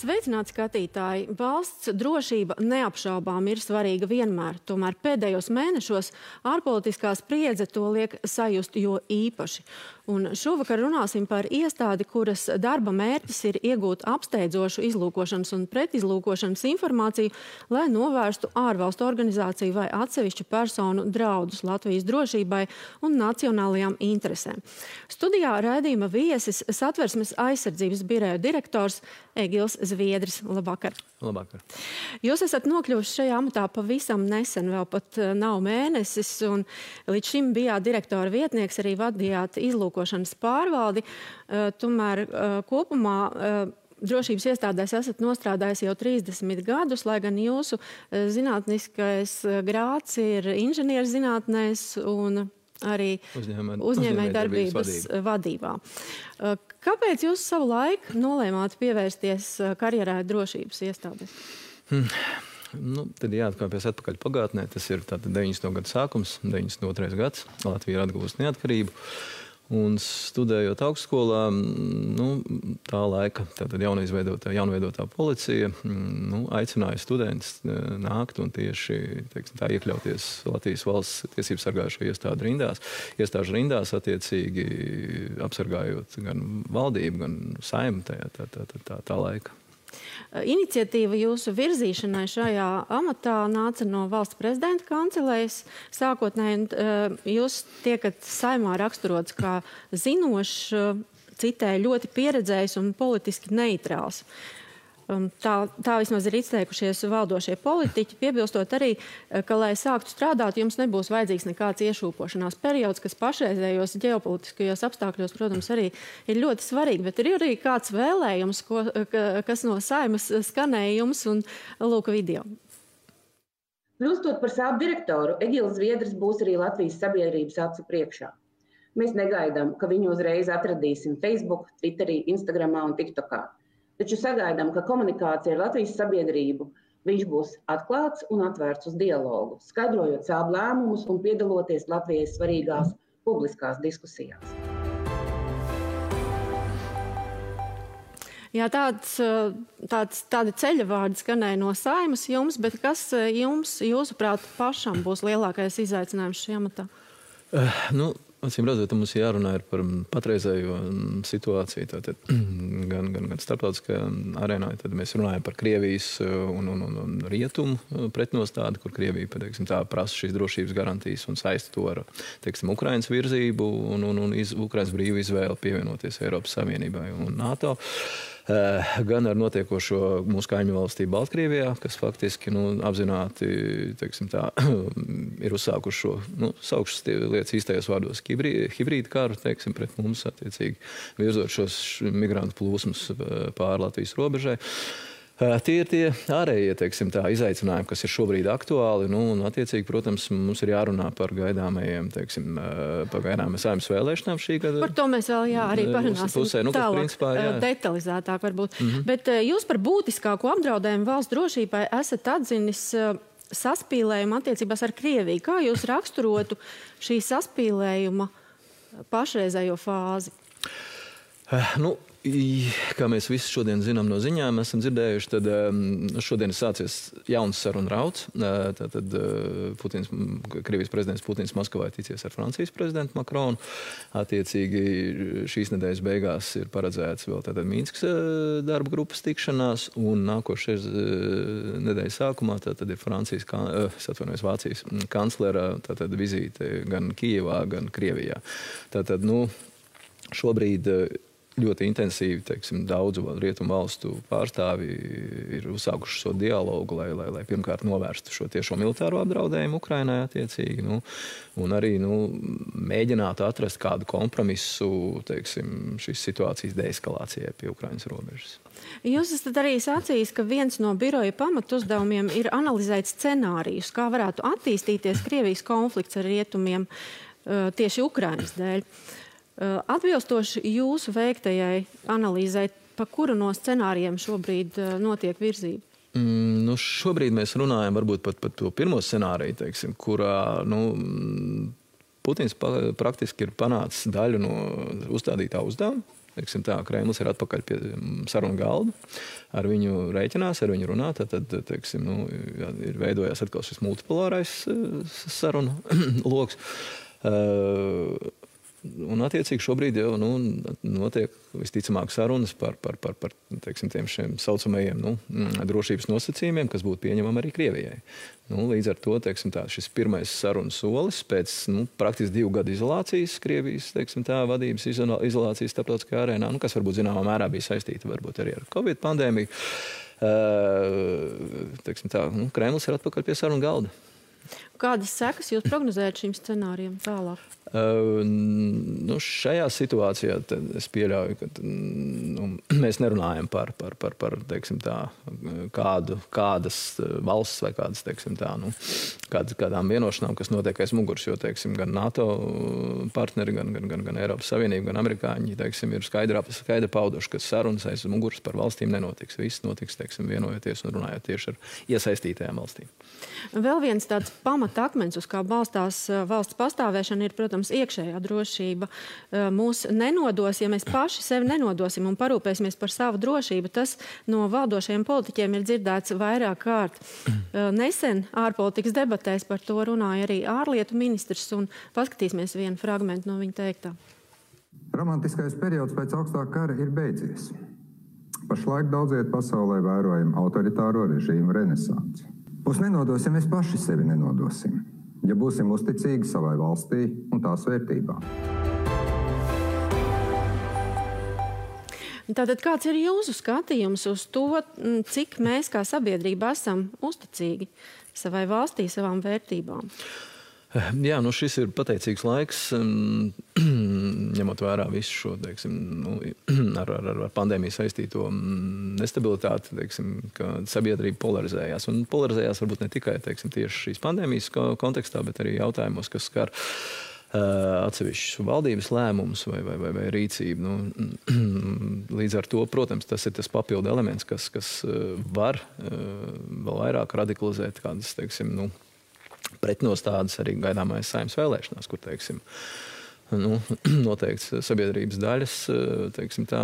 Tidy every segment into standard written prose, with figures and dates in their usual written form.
Sveicināti skatītāji! Valsts drošība neapšaubām ir svarīga vienmēr, tomēr pēdējos mēnešos ārpolitiskā spriedze to liek sajust jo īpaši. Un šovakar runāsim par iestādi, kuras darba mērķis ir iegūt apsteidzošu izlūkošanas un pretizlūkošanas informāciju, lai novērstu ārvalstu organizāciju vai atsevišķu personu draudus Latvijas drošībai un nacionālajām interesēm. Studijā raidījuma viesis Satversmes aizsardzības biroja direktors Egils Zviedris. Labvakar! Labvakar! Jūs esat nokļuvuši šajā amatā pavisam nesen, vēl pat nav mēnesis, un līdz šim bijāt direktora vietnieks, arī vadījāt izlūkošanas pārvaldi. Tomēr kopumā drošības iestādēs esat nostrādājis jau 30 gadus, lai gan jūsu zinātniskais grāds ir inženierzinātnēs un arī uzņēmējdarbības vadībā. Kāpēc jūs savu laiku nolēmāt pievērsties karjerai drošības iestādēs? Tad jāatkāpjas atpakaļ pagātnē. Tas ir 90. gadu sākums, 92. gads. Latvija ir atguvusi neatkarību. Un studējot augstskolā, tā laika jaunveidotā policija aicināja studentus nākt un tieši iekļauties Latvijas valsts tiesību sargājušo iestāžu rindās, attiecīgi apsargājot gan valdību, gan Saeimu tā laika. Iniciatīva jūsu virzīšanai šajā amatā nāca no valsts prezidenta kancelējas. Sākotnēji jūs tiekat Saeimā raksturots kā zinošs, citēju ļoti pieredzējis un politiski neitrāls. Tā vismaz ir izteikušies valdošie politiķi, piebilstot arī, ka, lai sāktu strādāt, jums nebūs vajadzīgs nekāds iešūpošanās periods, kas pašreizējos ģeopolitiskajos apstākļos, protams, arī ir ļoti svarīgi, bet ir arī kāds vēlējums, kas no Saeimas skanēja jums, un lūk video. Kļūstot par savu direktoru, Egils Zviedris būs arī Latvijas sabiedrības acu priekšā. Mēs negaidām, ka viņu uzreiz atradīsim Facebook, Twitterī, Instagramā un TikTokā. Taču sagaidām, ka komunikācija ar Latvijas sabiedrību viņš būs atklāts un atvērts uz dialogu, skaidrojot savu lēmumus un piedaloties Latvijai svarīgās publiskās diskusijās. Jā, tādi ceļavārdi skanēja no Saeimas jums, bet kas jums, jūsuprāt, pašam būs lielākais izaicinājums šajā amatā? Acīm redzot, mums jārunā par patreizējo situāciju, gan starptautiskajā arēnā. Tad mēs runājam par Krievijas un rietumu pretnostādi, kur Krievija prasa šīs drošības garantijas un saista to ar Ukrainas virzību un Ukrainas brīvu izvēli pievienoties Eiropas Savienībai un NATO. Gan ar notiekošo mūsu kaimiņu valstī Baltkrievijā, kas faktiski apzināti ir uzsākuši šo, saukšas lietas īstajos vārdos, hibrīdu karu, pret mums, attiecīgi, virzot šos migrantu plūsmas pāri Latvijas robežai. Tie ir tie ārējie, izaicinājumi, kas ir šobrīd aktuāli, un attiecīgi, protams, mums ir jārunā par gaidāmajiem, Saeimas vēlēšanām šī gada. Par to mēs vēl arī parunāsim tālāk, detalizētāk varbūt. Bet jūs par būtiskāko apdraudējumu valsts drošībai esat atzinis saspīlējumu attiecībās ar Krieviju. Kā jūs raksturotu šī saspīlējuma pašreizējo fāzi? Kā mēs visi šodien zinām no ziņām, esam dzirdējuši, tad šodien ir sācies jauns sarunu rauds. Krievijas prezidents Putins Maskavā ticies ar Francijas prezidentu Makronu. Attiecīgi šīs nedēļas beigās ir paredzēts vēl Mīnskas darba grupas tikšanās, un nākošais nedēļas sākumā tad ir Vācijas kanclera vizīte gan Kijevā, gan Krievijā. Šobrīd ļoti intensīvi, daudzu rietumu valstu pārstāvi ir uzsākuši šo dialogu, lai pirmkārt novērstu šo tiešo militāro apdraudējumu Ukrainai attiecīgi, un arī mēģinātu atrast kādu kompromisu, šīs situācijas deeskalācijai pie Ukrainas robežas. Jūs esat arī sacījis, ka viens no biroja pamatuzdevumiem ir analizēt scenārijus, kā varētu attīstīties Krievijas konflikts ar rietumiem tieši Ukrainas dēļ. Atbilstoši jūsu veiktajai analīzei, pa kuru no scenārijiem šobrīd notiek virzība? Šobrīd mēs runājam varbūt pat par to pirmo scenāriju, kurā Putins praktiski ir panācis daļu no uzstādītā uzdevuma. teiksim tā, Kremlis ir atpakaļ pie sarunu galda, ar viņu rēķinās, ar viņu runā, tad teiksim, ir veidojās atkal šis multipolārais sarunu loks. Un, attiecīgi, šobrīd jau notiek visticamāk sarunas par teiksim, tiem šiem saucamajiem drošības nosacījumiem, kas būtu pieņemami arī Krievijai. Līdz ar to teiksim, tā, šis pirmais sarunas solis pēc praktiski 2 gadu izolācijas, Krievijas teiksim, tā, vadības izolācijas starptautiskajā arēnā, kas varbūt zināmā mērā bija saistīta varbūt arī ar Covid pandēmiju. Teiksim, tā, Kremlis ir atpakaļ pie sarunu galda. Kādas sekas jūs prognozējat šim scenārijam tālāk? Šajā situācijā es pieļauju, ka mēs nerunājam par teiksim tā, kādas valsts vai kādas, teiksim tā, kādām vienošanām, kas notiek aiz muguras, jo, teiksim, gan NATO partneri, gan Eiropas Savienība, gan amerikāņi, teiksim, ir skaidri pauduši, ka sarunas aiz muguras par valstīm nenotiks. Viss notiks, teiksim, vienojoties un runājot tieši ar iesaistītajām valstīm. Vēl viens tāds pamatakmens, uz kā balstās valsts pastāvēšana, ir, protams, iekšējā drošība. Mūs nenodos, ja mēs paši sevi nenodosim un parūpēsimies par savu drošību. Tas no valdošajiem politiķiem ir dzirdēts vairāk kārt. Nesen ārpolitikas debatēs par to runāja arī ārlietu ministrs, un paskatīsimies vienu fragmentu no viņa teiktā. Romantiskais periods pēc augstā kara ir beidzies. Pašlaik daudziet pasaulē vērojam autoritāro režīmu renesansi. Mūs nenodos, ja mēs paši sevi nenodosim, ja būsim uzticīgi savai valstī un tās vērtībām. Tātad kāds ir jūsu skatījums uz to, cik mēs kā sabiedrība esam uzticīgi savai valstī, savām vērtībām? Jā, šis ir pateicīgs laiks, ņemot vērā visu šo, teiksim, ar pandēmiju saistīto nestabilitāti, teiksim, ka sabiedrība polarizējās. Un polarizējās varbūt ne tikai, teiksim, tieši šīs pandēmijas kontekstā, bet arī jautājumos, kas skar atsevišķus valdības lēmumus vai rīcību. Līdz ar to, protams, tas ir tas papildu elements, kas var vēl vairāk radikalizēt kādas, teiksim, pretnostādes arī gaidāmais Saeimas vēlēšanās, kur, teiksim, noteikti sabiedrības daļas, teiksim tā,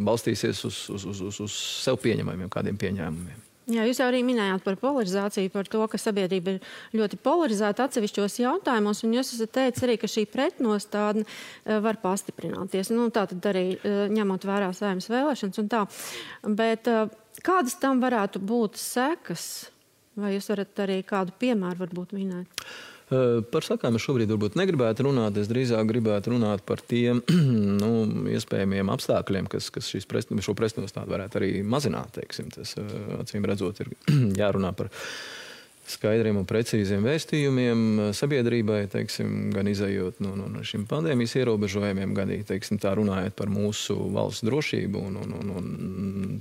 balstīsies uz sev pieņemamiem kādiem pieņēmumiem. Jā, jūs jau arī minējāt par polarizāciju, par to, ka sabiedrība ir ļoti polarizēta atsevišķos jautājumos, un jūs esat teicis arī, ka šī pretnostādne var pastiprināties. Tā tad arī ņemot vērā Saeimas vēlēšanas un tā. Bet kādas tam varētu būt sekas? Vai jūs varat arī kādu piemēru varbūt minēt? Par sakām es šobrīd varbūt negribētu runāt. Es drīzāk gribētu runāt par tiem iespējamiem apstākļiem, kas šo pretnostādi varētu arī mazināt. Teiksim. Tas, acīm redzot, ir jārunā par skaidriem un precīziem vēstījumiem sabiedrībai, teiksim, gan izējot no šiem pandēmijas ierobežojumiem, gan teiksim, tā runājot par mūsu valsts drošību un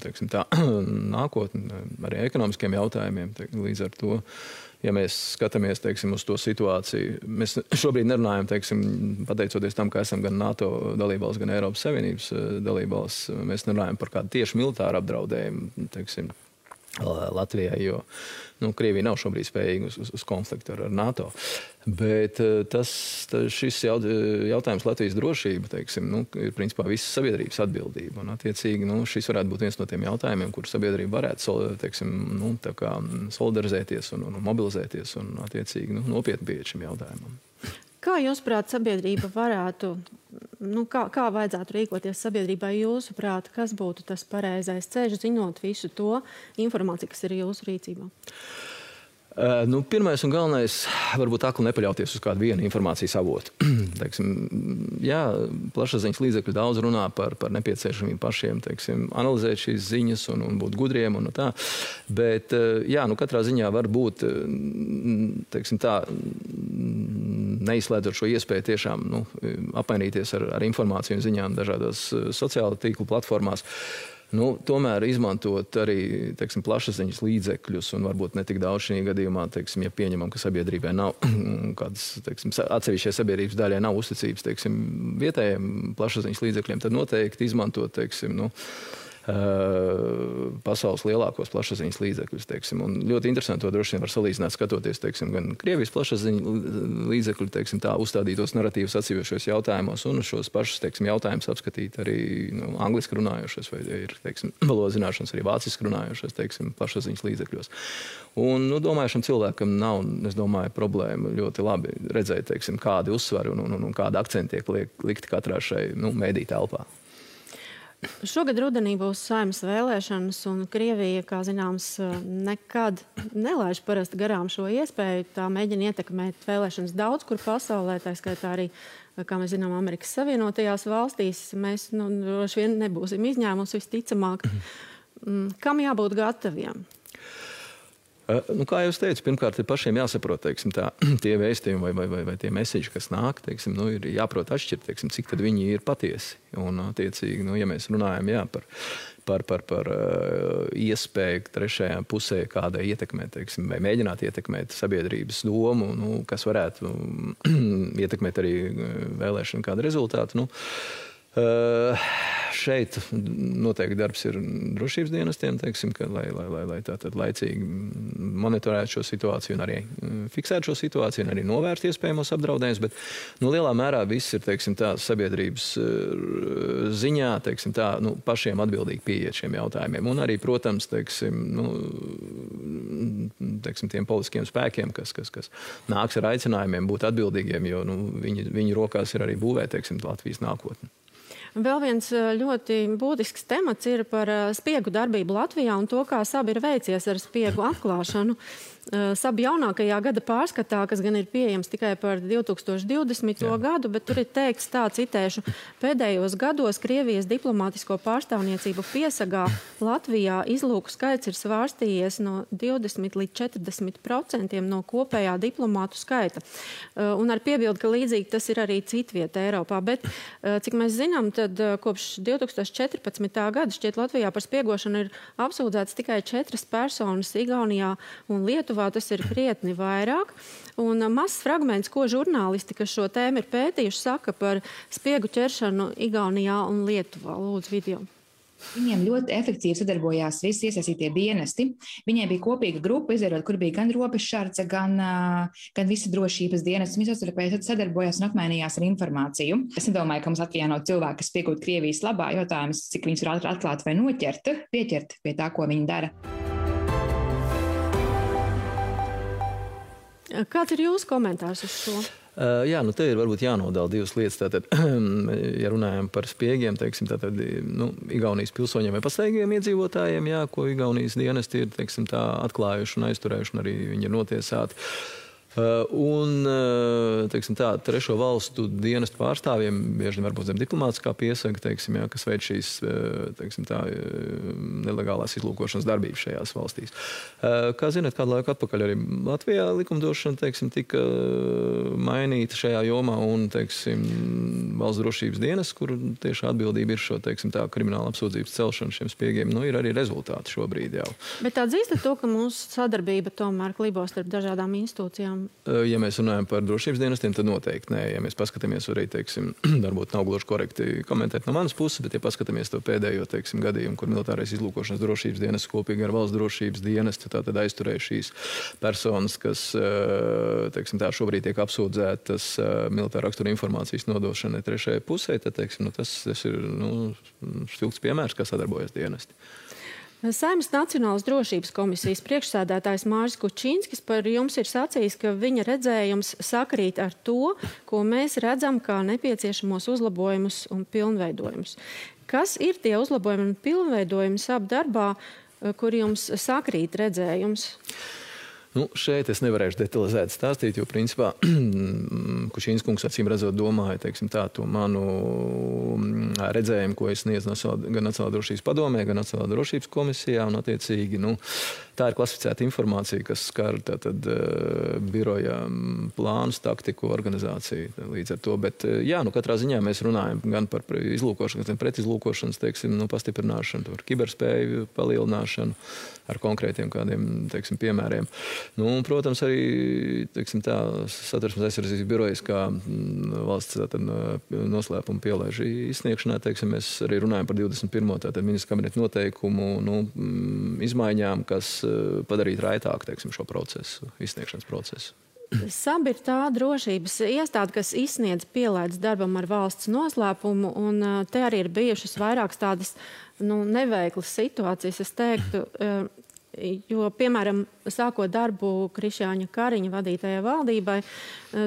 teiksim, tā nākotni, arī ekonomiskiem jautājumiem. Līdz ar to, ja mēs skatāmies, teiksim, uz to situāciju, mēs šobrīd nerunājam, teiksim, pateicoties tam, ka esam gan NATO dalībvalsts, gan Eiropas Savienības dalībvalsts, mēs nerunājam par kādu tieši militāru apdraudējumu, teiksim, Latvijai, jo Krievija nav šobrīd spējīga uz konfliktu ar NATO. Bet šis jautājums Latvijas drošība, teiksim, ir principā visas sabiedrības atbildība. Un, attiecīgi, šis varētu būt viens no tiem jautājumiem, kur sabiedrība varētu, teiksim, tā kā solidarizēties un mobilizēties un, attiecīgi, nopietni pieiet šim jautājumam. Kā jūsuprāt sabiedrība varētu, kā vajadzētu rīkoties sabiedrībai jūsuprāt, kas būtu tas pareizais ceļš, zinot visu to informāciju, kas ir jūsu rīcībā? Pirmais un galvenais, varbūt akli nepaļauties uz kādu vienu informācijas avotu. Teiksim, jā, plašsaziņas līdzekļi daudz runā par nepieciešamību pašiem, teiksim, analizēt šīs ziņas un būt gudriem un tā. Bet, jā, katrā ziņā var būt, teiksim tā, neizslēdzot šo iespēju tiešām apmainīties ar informāciju un ziņām dažādās sociāla tīklu platformās. Tomēr izmantot arī, teiksim, plašsaziņas līdzekļus un varbūt ne tik daudz šī gadījumā, teiksim, ja pieņemam, ka sabiedrībai nav kādas, teiksim, atsevišķai sabiedrības daļai nav uzticības, teiksim, vietējiem plašsaziņas līdzekļiem, tad noteikti izmantot, teiksim, pasaules lielākos plašsaziņas līdzekļus, teiksim. Un ļoti interesanti to droši vien var salīdzināt, skatoties, teiksim, gan Krievijas plašsaziņas līdzekļu, teiksim, tā uzstādītos narratīvus atsevišķos jautājumos un šos pašus, teiksim, jautājumus apskatīt arī angliski runājošos vai ir, teiksim, valodas zināšanas arī vāciski runājošos, teiksim, plašsaziņas līdzekļos. Un, domāju, šim cilvēkam nav, es domāju, problēma ļoti labi redzēt, teiksim, kādi uzsvari un kādi akcenti tiek likti katrā šai, mēdī telpā. Šogad rudenī būs Saeimas vēlēšanas, un Krievija, kā zināms, nekad nelaiž parasti garām šo iespēju. Tā mēģina ietekmēt vēlēšanas daudz kur pasaulē, tā skaitā arī, kā mēs zinām, Amerikas Savienotajās valstīs. Mēs droši vien nebūsim izņēmums visticamāk. Kam jābūt gataviem? Kā jau es teicu, pirmkārt, ir pašiem jāsaprot, teiksim, tie vēstījumi vai tie meseži, kas nāk, teiksim, ir jāprot atšķirt, teiksim, cik tad viņi ir patiesi. Un, attiecīgi, ja mēs runājam par iespēju trešajā pusē kādai ietekmēt, teiksim, vai mēģināt ietekmēt sabiedrības domu, kas varētu ietekmēt arī vēlēšanu kādu rezultātu. Šeit noteikti darbs ir drošības dienestiem, teiksim, lai tātad laicīgi monitorētu šo situāciju un arī fiksētu šo situāciju un arī novērst iespējamos apdraudējumus, bet lielā mērā viss ir, teiksim, sabiedrības ziņā, teiksim, pašiem atbildīgi pieiet šiem jautājumiem. Un arī, protams, teiksim, tiem politiskiem spēkiem, kas nāks ar aicinājumiem būt atbildīgiem, jo viņu rokās ir arī būvēt, teiksim, Latvijas nākotni. Vēl viens ļoti būtisks temats ir par spiegu darbību Latvijā un to, kā SAB ir veicies ar spiegu atklāšanu. SAB jaunākajā gada pārskatā, kas gan ir pieejams tikai par 2020. gadu, bet tur ir teikts tā, citēšu, pēdējos gados Krievijas diplomātisko pārstāvniecību piesagā Latvijā izlūku skaits ir svārstījies no 20 līdz 40% no kopējā diplomātu skaita. Un ar piebildu, ka līdzīgi tas ir arī citvieta Eiropā. Bet, cik mēs zinām, tad kopš 2014. gada šķiet Latvijā par spiegošanu ir apsūdzēts tikai 4 personas Igaunijā un Lietuvā. Tas ir krietni vairāk. Un mazs fragments, ko žurnālisti, kas šo tēmu ir pētījuši, saka par spiegu ķeršanu Igaunijā un Lietuvā. Lūdzu, video. Viņiem ļoti efektīvi sadarbojās visi iesaistītie dienesti. Viņiem bija kopīga grupa, izveidot, kur bija gan robežsardze, gan visi drošības dienesti. Viņi savstarpēji sadarbojās un apmainījās ar informāciju. Es nedomāju, ka mums Latvijā nav cilvēki, kas piekūt Krievijas labā. Jautājums, cik viņus var atklāt vai pieķert pie tā, ko viņi dara. Kāds ir jūsu komentārs uz šo? Jā, te ir varbūt jānodala divas lietas. Tātad, ja runājam par spiegiem, teiksim, tātad, Igaunijas pilsoņiem vai pastāvīgiem iedzīvotājiem, ko Igaunijas dienesti ir, teiksim, atklājuši un aizturējuši, un arī viņi ir notiesāti. Un, teiksim, trešo valstu dienestu pārstāvjiem bieži varbūt zem diplomātiskā piesaga, teiksim, kas veic šīs, teiksim, nelegālās izlūkošanas darbības šajās valstīs. Kā zināt, kādu laiku atpakaļ arī Latvijā likumdošana, teiksim, tika mainīta šajā jomā un, teiksim, valsts drošības dienas, kur tieši atbildība ir šo, teiksim, krimināla apsūdzības celšana šiem spiegiem, ir arī rezultāti šobrīd jau. Bet atzīstat to, ka mūsu sadarbība tomēr klibo starp dažādām institūcijām? Ja mēs runājam par drošības dienestiem, tad noteikti nē. Ja mēs paskatāmies arī, teiksim, varbūt nav gluži korekti komentēt no manas puses, bet ja paskatāmies to pēdējo, teiksim, gadījumu, kur militārais izlūkošanas drošības dienests kopīgi ar valsts drošības dienestu tātad aizturēja šīs personas, kas, teiksim, šobrīd tiek apsūdzētas militāra rakstura informācijas nodošanai trešajai pusē, tad, teiksim, tas ir, spilgts piemērs, kā sadarbojas dienesti. Saeimas Nacionālās drošības komisijas priekšsēdētājs Māris Kučīnskis par jums ir sacījis, ka viņa redzējums sakrīt ar to, ko mēs redzam kā nepieciešamos uzlabojumus un pilnveidojumus. Kas ir tie uzlabojumi un pilnveidojumi SAB darbā, kur jums sakrīt redzējums? Šeit es nevarēšu detalizēt stāstīt, jo principā Kučīns kungs acīm redzot domāja, teiksim, to manu redzējumu, ko es sniedzu gan Nacionālā drošības padomē, gan Nacionālā drošības komisijā, un attiecīgi, tā ir klasificēta informācija, kas skar tātad biroja plānus, taktiku, organizāciju līdz ar to. Bet, jā, katrā ziņā mēs runājam gan par izlūkošanas, gan pretizlūkošanas, pastiprināšanu, par kiberspēju palielināšanu ar konkrētiem kādiem, piemēriem. Protams, arī, Satversmes aizsardzības birojas kā valsts noslēpuma pielaižu izsniegšanā, mēs arī runājam par 21. Ministra kabineta noteikumu izmaiņām, kas padarītu raitāk, šo procesu, izsniegšanas procesu. SAB ir tā drošības iestāde, kas izsniedz pielaides darbam ar valsts noslēpumu, un te arī ir bijušas vairākas tādas neveiklas situācijas, es teiktu, jo, piemēram, sākot darbu Krišjāņa Kariņa vadītajai valdībai,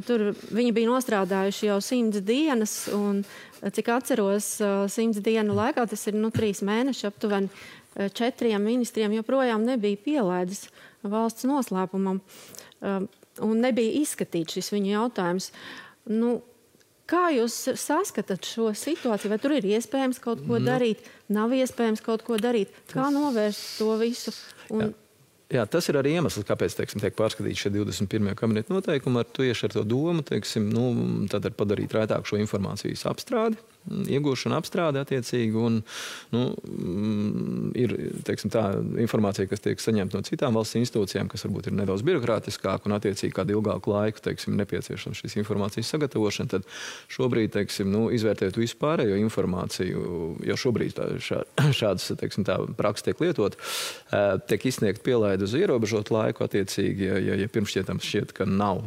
tur viņi bija nostrādājuši jau 100 dienas, un, cik atceros, 100 dienu laikā, tas ir 3 mēneši, aptuveni 4 ministriem joprojām nebija pielaides valsts noslēpumam. Un nebija izskatīts šis viņu jautājums. Kā jūs saskatāt šo situāciju? Vai tur ir iespējams kaut ko darīt? Nav iespējams kaut ko darīt? Kā novērst to visu? Jā, tas ir arī iemesls, kāpēc tiek pārskatīts šie 21. kabineta noteikumi. Tieši ar to domu tad padarīt raitāk šo informācijas apstrādi, iegūšanu apstrādi attiecīgi. Un, ir tā informācija, kas tiek saņemta no citām valsts institūcijām, kas varbūt ir nedaudz birokrātiskāk un attiecīgi kādu ilgāku laiku nepieciešams šīs informācijas sagatavošana. Tad šobrīd, izvērtējot visu pārējo informāciju, jau šobrīd šādas praksa tiek lietot, tiek izsniegt pielaide uz ierobežotu laiku attiecīgi, ja pirmšķietams šķiet, ka nav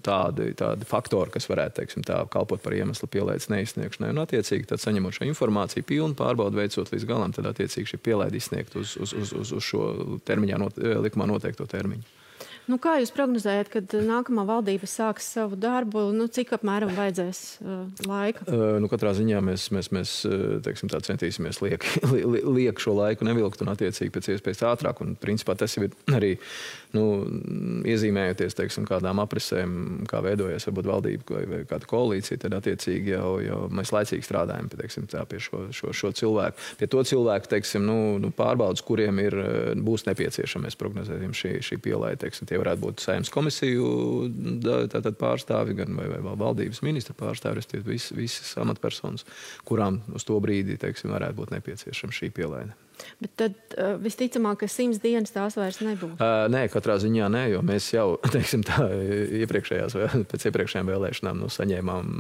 tādi faktori, kas varētu kalpot par iemeslu pielaides neizsniegšanai. Un attiecīgi, tad saņemot šo informāciju, pilnu pārbaudu veicot līdz galam, tad attiecīgi šī pielaide izsniegt uz šo termiņā, likumā noteikto termiņu. Kā jūs prognozējat, kad nākamā valdība sāks savu darbu? Cik apmēram vajadzēs laika? Katrā ziņā mēs centīsimies liek šo laiku nevilkt un attiecīgi pēc iespējas ātrāk. Un principā tas ir arī iezīmējoties kādām aprisēm, kā veidojas varbūt valdība vai kāda koalīcija, tad attiecīgi jau mēs laicīgi strādājam pie šo cilvēku. Pie to cilvēku pārbaudas, kuriem būs nepieciešama, mēs prognozējam šī pielaide. Tie varētu būt Saeimas komisiju pārstāvi, gan vai valdības ministra pārstāvi, visas amatpersonas, kurām uz to brīdi varētu būt nepieciešama šī pielaide. Bet tad visticamāk, ka 100 dienas tās vairs nebūs? Nē, katrā ziņā nē, jo mēs jau, pēc iepriekšējām vēlēšanām saņēmām,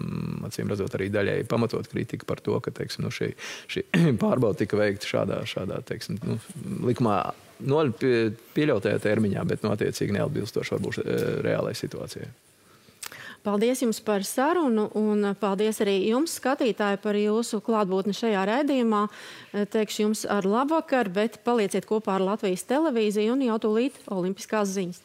acīm redzot, arī daļai pamatot kritiku par to, ka šī pārbauda tika veikta šādā likumā pieļautajā termiņā, bet attiecīgi neatbilstoši varbūt reālai situācijai. Paldies jums par sarunu un paldies arī jums, skatītāji, par jūsu klātbūtni šajā raidījumā. Teikšu jums ar labvakar, bet palieciet kopā ar Latvijas televīziju un jau tūlīt olimpiskās ziņas.